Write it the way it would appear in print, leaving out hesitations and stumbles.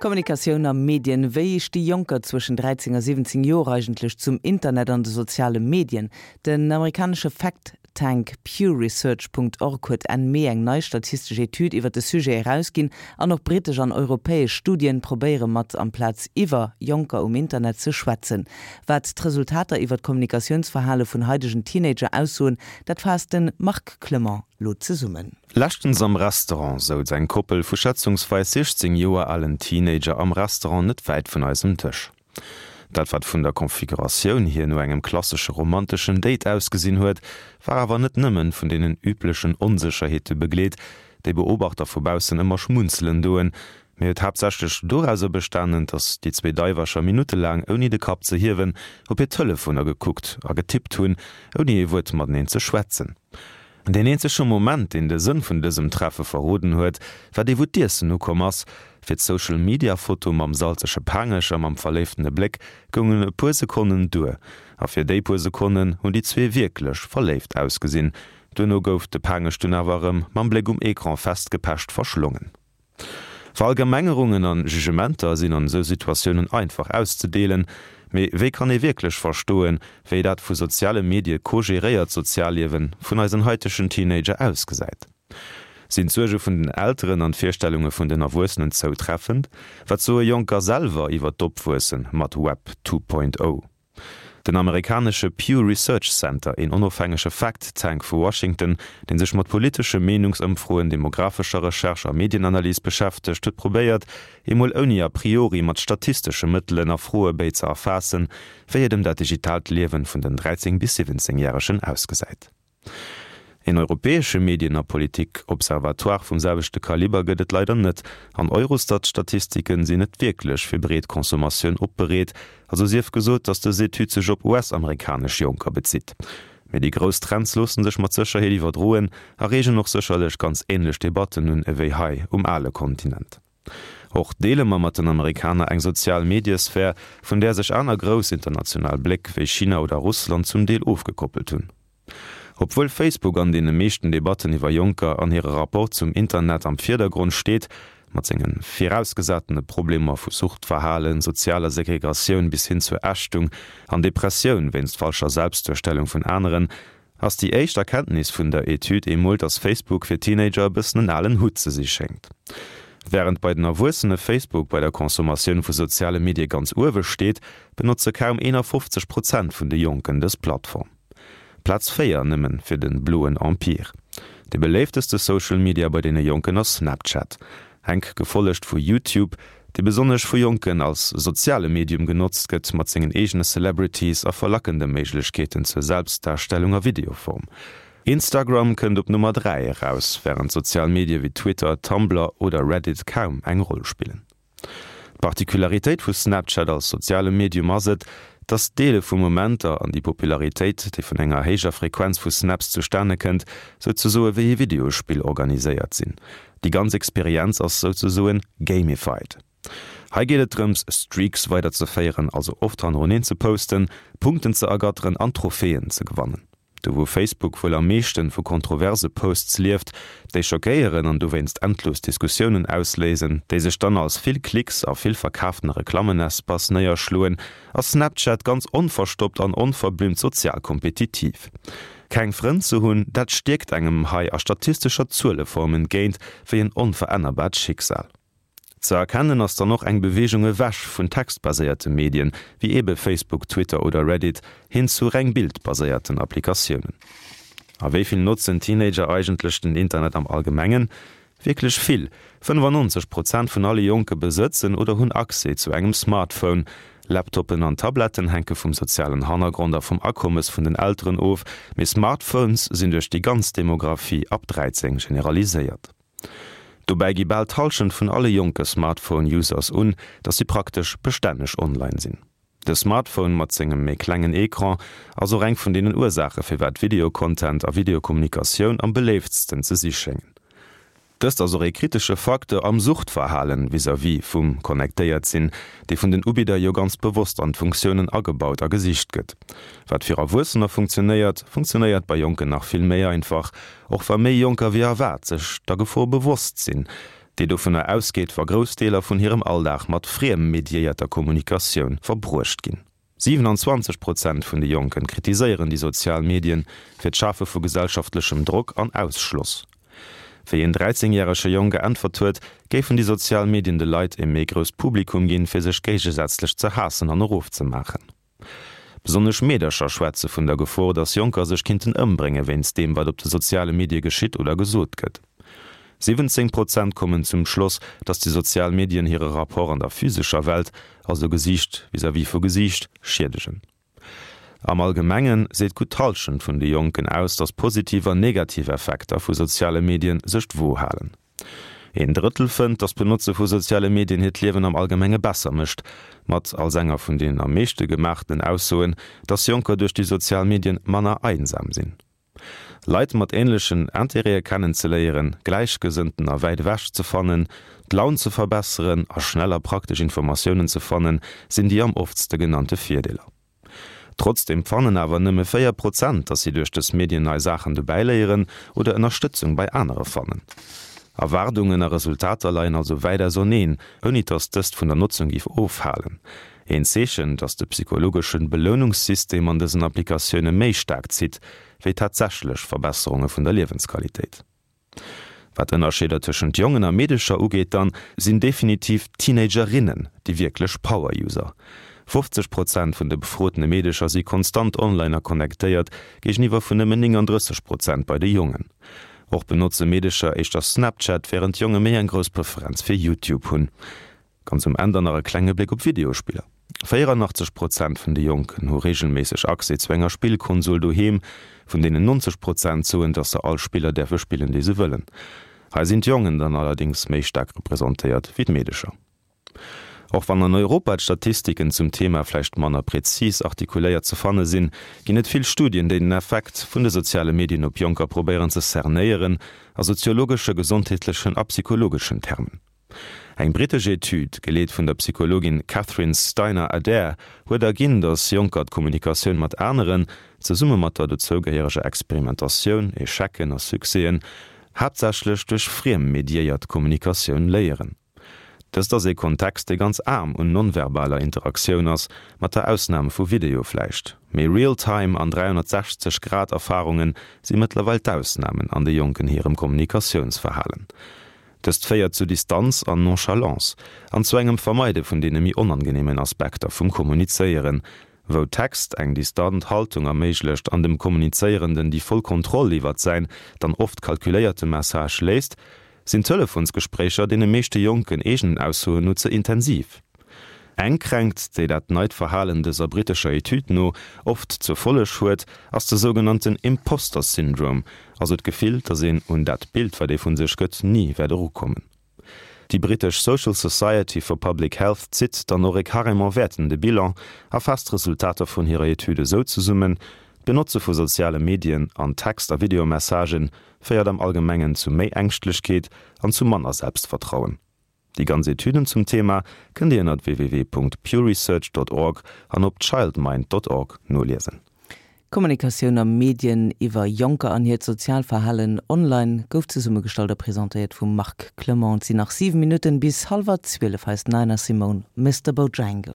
Kommunikatioun a Medien, Wéi sti Jonker zwëschen 13 a 17 Joer eigentlech zum Internet an de soziale Medien? Den amerikanesche Fact Tank Pew Research. Org huet Enn Mee eng nei statistesch Etüd iwwer de Sujet erausginn an och brittesch an europäesch Studien probéiere mat amplaz iwwer Jonker um Internet ze schwätzen. Wat d'Resultater iwwer d'Kommunikatiounsverhale vun haidegen Teenager aussoen, dat faasst de Marc Clement lo zesummen. Leschtens am Restaurant souz eng Koppel vu schätzungsweis 16 Joer alen Teenager am Restaurant net wäit vun eisem Dësch. Dat wat vun der Konfiguratioun hier no engem klassesche romanteschen Date ausgesinn huet, war awer net nëmmen vun deenen üblechen Onsécherheete begleet, déi Beobachter vu baussen ëmmer schmunzelen doen, mee huet haaptsächlech dorauser bestanen, datt déi zwee Daiwercher minuttelaang ouni de Kapp ze hiewen op hir Telefoner gekuckt a getippt hunn, ouni ee Wuert mateneen ze schwätzen. Deen eenzege Moment, deen de Sënn vun dësem Treffe verroden huet, war dee wou d'Iessen ukomm ass. Fir d'Social Media Foto mam salzege Paangech a mam verléiftene Bléck goungen e puer Sekonnen duer. A fir déi puer Sekonnen hunn déi zwee wierklech verléift ausgesinn. Duerno gouf de Paangech dunn awer erëm mam Bléck um Ecran festgepecht verschlongen. Verallgemengerungen an Jugementer sinn an esou Situatiounen einfach auszedeelen, mee wéi kann ee wierklech verstoen, wéi dat vu soziale Medie co-geréiert Sozialliewen vun eisen haitegen Teenager ausgesäit? Sinn d'Suerge vun den Elteren an d'Virstellunge vun den Erwuessenen zoutreffend? Wat soe Jonker selwer iwwer d'Opwuesse mat Web 2.0? Den amerikanesche Pew Research Center, een onofhängege Fact Tank vu Washington, dee sech mat politesche Meenungsëmfroen, demographescher Recherche a Medienanalys beschäftegt, huet probéiert, emol ouni a priori mat statistesche Mëttelen a Froebéi ze erfaassen, wéi et ëm dat digitaalt Liewen vun den 13 bis 17 Järegen ausgesäit. Een europäesche Medien a Politik-Observatoire vum selwechte Kaliber gëtt et leider net, an Eurostat-Statistiken sinn net wierklech fir breet Consommatioun opbereet, also sief gesot, datt dës Etüd sech op US-amerikanesch Jonker bezitt. Mee déi grouss Trends loosse sech mat Sécherheet iwwerdroen a reegen och sécherlech ganz änlech Debatten un ewéi hei um ale Kontinent. Och deele mer mat den Amerikaner eng sozial Mediesphär, vun där sech aner grouss international Bléck wéi China oder Russland zum Deel ofgekoppelt hunn. Obwuel Facebook an deene meeschten Debatten iwwer Jonker an hire Rapport zum Internet am Virdergrond steet, mat senge virausgesatene Problemer vu Suchtverhalen, sozialer Segregatioun bis hin zur Ächtung an Depressioun wéinst falscher Selbstduerstellung vun aneren, Ass déi éischt Erkenntnis vun der Etüd emol, dass Facebook fir Teenager e bëssen en alen Hutt ze si schéngt. Wärend bei den Erwuessene Facebook bei der Consommatioun vu soziale Medie ganz uewe steet, benotze kaum 51 Prozent vun de Jonken dës Plattform. Plaz 4 nëmmen fir de bloen Empire. De beléifteste Social Media bei deene Jonken ass Snapchat. Enk gefollegt vu YouTube, dee besonnesch vu Jonken als soziale Medium genotzt gëtt, mat sengen eegene Celebrities a verlackende Méiglechkeeten zur Selbstdarstellung a Videoform. Instagram kënnt op Nummer 3 eraus, wärend sozial Medie wéi Twitter, Tumblr oder Reddit kaum eng Roll spillen. D'Particularitéit vu Snapchat als soziale Medium ass et, dass d'Deele vu Momenter an déi Popularitéit, déi vun enger héijer Frequenz vu Snaps zustane kënnt, souzesoe wéi ee Videospill organiséiert sinn. Déi ganz Experienz ass souzesoen gamified. Hei geet et drëms, Streaks weiderzeféieren, also oft hannereneen ze posten, Punkten ze ergatteren an Trophäen ze gewannen. Do wou Facebook wuel am meeschten vu kontroverse Posts lieft, déi schockéieren an dowéinst endlos Diskussiounen ausléisen, déi sech dann als vill Klicks a vill verkaaften Reklammenespace néierschloen, ass Snapchat ganz onverstoppt an onverblümmt sozial kompetitiv. Keng Frënn ze hunn, dat stierkt engem hei a statistescher Zueleform entgéint wéi en onverännerbart Schicksal. Ze erkennen ass dann och eng Beweegung ewech vun textbaséierte Medien, wéi eebe Facebook, Twitter oder Reddit, hin zu reng bildbaséierten Applikatiounen. A wéi vill notzen Teenager eigentlech den Internet am Allgemengen? Wierklech vill, 95 Prozent vun alle Jonke besëtzen oder hunn Accès zu engem Smartphone. Laptoppen an Tabletten hänke vum sozialen Hannergrond a vum Akommes vun den Elteren of, mee Smartphones sinn duerch déi ganz Demographie ab 13 generaliséiert. Dobäi gi bal d'Hallschent vun alle jonke Smartphone-Users un, datt si praktesch bestänneg online sinn. De Smartphone mat sengem méi klengen Ecran ass och eng vun deenen Ursaache firwat Video-Content a Videokommunikatioun am beléiftsten ze si schéngen. Dëst ass och ee kritesche Facteur am Suchtverhalen vis-à-vis vum connectéiert sinn, dee vun den Ubidder jo ganz bewosst an d'Funktiounen agebaut a gesicht gëtt. Wat fir Erwuessener funktionéiert, funktionéiert bei Jonken nach vill méi einfach, och wa méi Jonker wéi erwaart sech der Gefor bewosst sinn. Déi dovunner ausgeet, wa grouss Deeler vun hirem Alldag mat friem-mediéierter Kommunikatioun verbruecht ginn. 27 Prozent vun de Jonken kritiséieren déi sozial Medien fir d'Schafe vu gesellschaftlechem Drock an Ausschloss. Wéi een 13 järege Jong geäntwert huet, géifen déi sozial Medien de Leit e méi grousst Publikum ginn, fir sech géigesätzlech ze haassen an erofzemaachen. Besonnesch Meedercher schwätze vun der Gefor, datt Jonker sech kinnten ëmbrénge wéinst deem, wat op de soziale Medie geschitt oder gesot gëtt. 17 Prozent kommen zum Schloss, datt déi sozial Medien hire Rapport an der physescher Welt, also Gesiicht vis-à-vis vu Gesiicht, schiedegen. Am Allgemenge seet gutt d'Hallschent vun de Jonken aus, datt positiv an negativ Effekter vu soziale Medien sech d'Wo halen. Een Drëttel fënnt, datt d'Benotze vu soziale Medien hiert Liewen am Allgemenge besser mécht, mat als enger vun den am meeschte gemaachten Aussoen, datt Jonker duerch déi sozial Medien manner einsam sinn. Leit mat änlechen Intérêtë kennenzeléieren, Gläichgesënnten a wäit ewech ze fannen, d'Laun ze verbesseren a schnell a praktesch Informatiounen ze fannen, sinn déi am oftste genannte Virdeeler. Trotzdeem fannen awer nëmme 4 Prozent, dass si duerch dës Medien nei Saachen dobäiléieren oder Ënnerstëtzung bei anere fannen. Erwaardungen a Resultater leien also wäit auserneen, ouni dass dëst vun der Notzung géif ofhalen. Een Zeechen, dass de psychologeschen Belounungssystem an dësen Applikatioune méi staark zitt, wéi tatsächlech Verbesserunge vun der Liewensqualitéit. Wat Ënnerscheeder tëschent Jongen a Meedecher ugeet, dann sinn definitiv d'Teenagerinnen déi wierklech Power-User. 50 Prozent vun de befrotene Meedecher si konstant online a connectéiert, géigeniwwer vun nëmmen 39 Prozent bei de Jongen. Och benotze Meedecher éischter Snapchat, wärend d'Jonge méi eng grouss Preferenz fir YouTube hunn. Ganz um Enn dann nach e klenge Bléck op Videospiller. 84 Prozent vun de Jonken hu reegelméisseg Accès zu enger Spillkonsol doheem, vun deenen 90 Prozent soen, dass se all Spiller däerfe spillen, déi se wëllen. Hei sinn d'Jongen dann allerdéngs méi staark representéiert wéi d'Meedecher. Och wann an Europa d'Statistiken zum Thema vläicht manner prezis artikuléiert ze fanne sinn, ginn et vill Studien, déi den Effekt vun de soziale Medien op Jonker probéieren ze cernéieren, a soziologesche, gesondheetlechen a psychologeschen Termen. Eng brittesch Etüd, geleet vun der Psychologin Catherine Steiner-Adair, huet erginn, datt Jonker d'Kommunikatioun mat aneren, zesumme mat der dozougehéiereger Experimentatioun, Echecen a Succèsen, haaptsächlech duerch friem-mediéiert Kommunikatioun léieren. Dëst ass ee Kontext, dee ganz aarm un non-verbaler Interaktioun ass, mat der Ausnam vu Video vläicht. Mee Real-Time an 360 Grad Erfarunge si mëttlerweil d'Ausnamen an de Jonken hirem Kommunikatiounsverhalen. Dëst féiert zu Distanz an Nonchalance an zu engem Vermeide vun deene méi onangeneemen Aspekter vum Kommunizéieren. Wou Text eng distant Haltung erméiglecht an dem Kommunizéierenden déi voll Kontroll iwwert säin dann oft kalkuléierte Message léisst, sinn Telefonsgespréicher deene meeschte Jonken eegenen Aussoen no ze intensiv. Eng Kränkt, déi dat neit Verhalen dëser brittescher Etüd no oft zur Folleg huet, ass de sougenannten Imposter Syndrome, also d'Gefill, datt een un dat Bild, wat ee vu sech gëtt, ni wäert erukommen. Déi brittesch Social Society for Public Health zitt dann och e carrément wäertende Bilan a faasst d'Resultater vun hirer Etüd esou zesummen, D'Benotze vu soziale Medien an Text a Videomessagë féiert am Allgemengen zu méi Ängschtlechkeet an zu manner Selbstvertrauen. Déi ganz Etüden zum Thema kënnt Dir ënnert www.pewresearch.org an op childmind.org noliesen. Kommunikatioun a Medien iwwer Jonker an hiert Sozialverhalen online gouf zesummegestallt a presentéiert vum Marc Clement. Et sinn nach 7 Minutten bis hallwer 12 hei ass d'Nina Simone, Mister Bojangles.